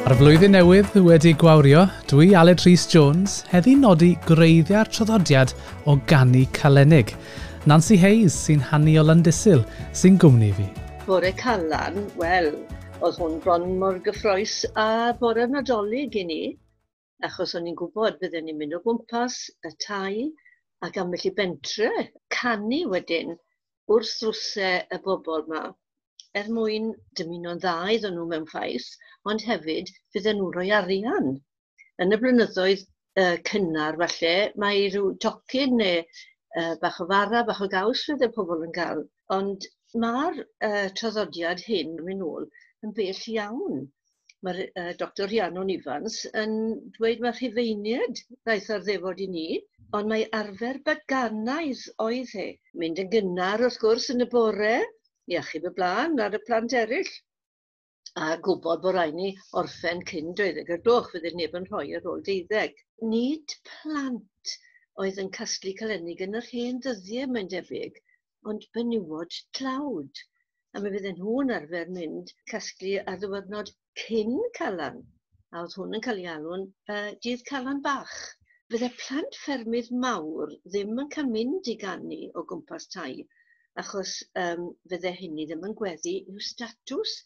A'r flwyddyn newydd wedi gwawrio, dwi Aled Rhys Jones heddi nodi gwreiddiau'r traddodiad o ganu Calennig. Nancy Hayes sy'n hanu o Landysul sy'n gwmni fi. Bore Calan, wel, oedd hwn bron mor gyffrous a bore Nadolig i ni, achos o'n i'n gwybod bydden ni'n mynd o gwmpas y tai ac ambell i bentre, canu wedyn wrth ddrwsau y bobl yma er mwyn dymuno'n dda iddyn nhw mewn ffaith, ond hefyd fydden nhw'n rhoi arian. Yn y blynyddoedd cynnar falle, mae rhyw tocyn neu bach o fara, bach o gaws fydde pobl yn cael. Ond mae'r traddodiad hyn yn mynd nôl yn bell iawn. Mae'r Dr Rhiannon Ifans yn dweud mae Rhufeiniaid ddaeth ar ddefod i ni, ond mae arfer baganaidd oedd e. Mynd yn gynnar wrth gwrs yn y bore, i achub y blaen ar y plant eraill. A gwybod bod rhaid ni orffen cyn 12 o'r gloch, fydde neb yn rhoi ar ôl 12. Nid plant oedd yn casglu calennig yn yr hen ddyddiau, mae'n debyg, ond benywod tlawd. A mi fydden nhw'n arfer mynd casglu ar ddiwrnod cyn Calan. A oedd hwn yn cael ei alw'n dydd Calan bach. Fydde plant ffermydd mawr ddim yn cael mynd i ganu o gwmpas tai, achos fydde hynny ddim yn gweddu i'w statws.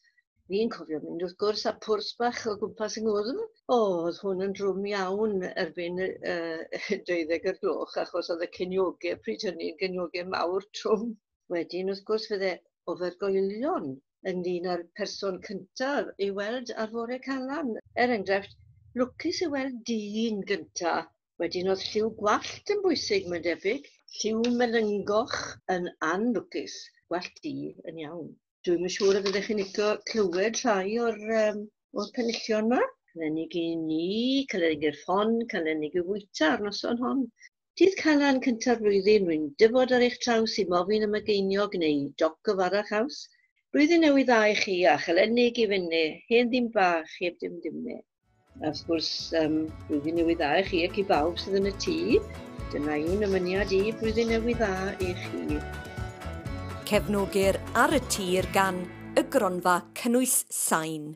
Fi'n cofio mynd wrth gwrs a pwrs bach o gwmpas yng ngwddf. O, oedd hwn yn drwm iawn erbyn 12 o'r gloch, achos oedd y ciniogau pryd hynny yn giniogau mawr trwm. Wedyn wrth gwrs fydde ofergoelion ynglyn â'r person cyntaf i weld ar fore Calan. Er enghraifft, lwcus i weld dyn gyntaf. Wedyn oedd lliw gwallt yn bwysig, mae'n debyg. Lliw melyngoch yn anlwcus, gwallt du yn iawn. Dwi'm yn siŵr y fyddech chi'n licio clywed rhai o'r penillion yma. Calennig i ni, calennig i'r ffon, calennig i fwyta ar noson hon. Dydd Calan cynta'r flwyddyn, rwy'n dyfod ar eich traws i mofyn am y geiniog neu doc o fara chaws. Blwyddyn newydd dda i chi a chalennig i fyny, hen ddim bach heb dim dimne. A wrth gwrs, blwyddyn newydd dda i chi ac i bawb sydd yn y tŷ. Dyna yw'n ymyniad i, blwyddyn newydd dda i chi. Cefnogir Ar y Tir gan y Gronfa Cynnwys Sain.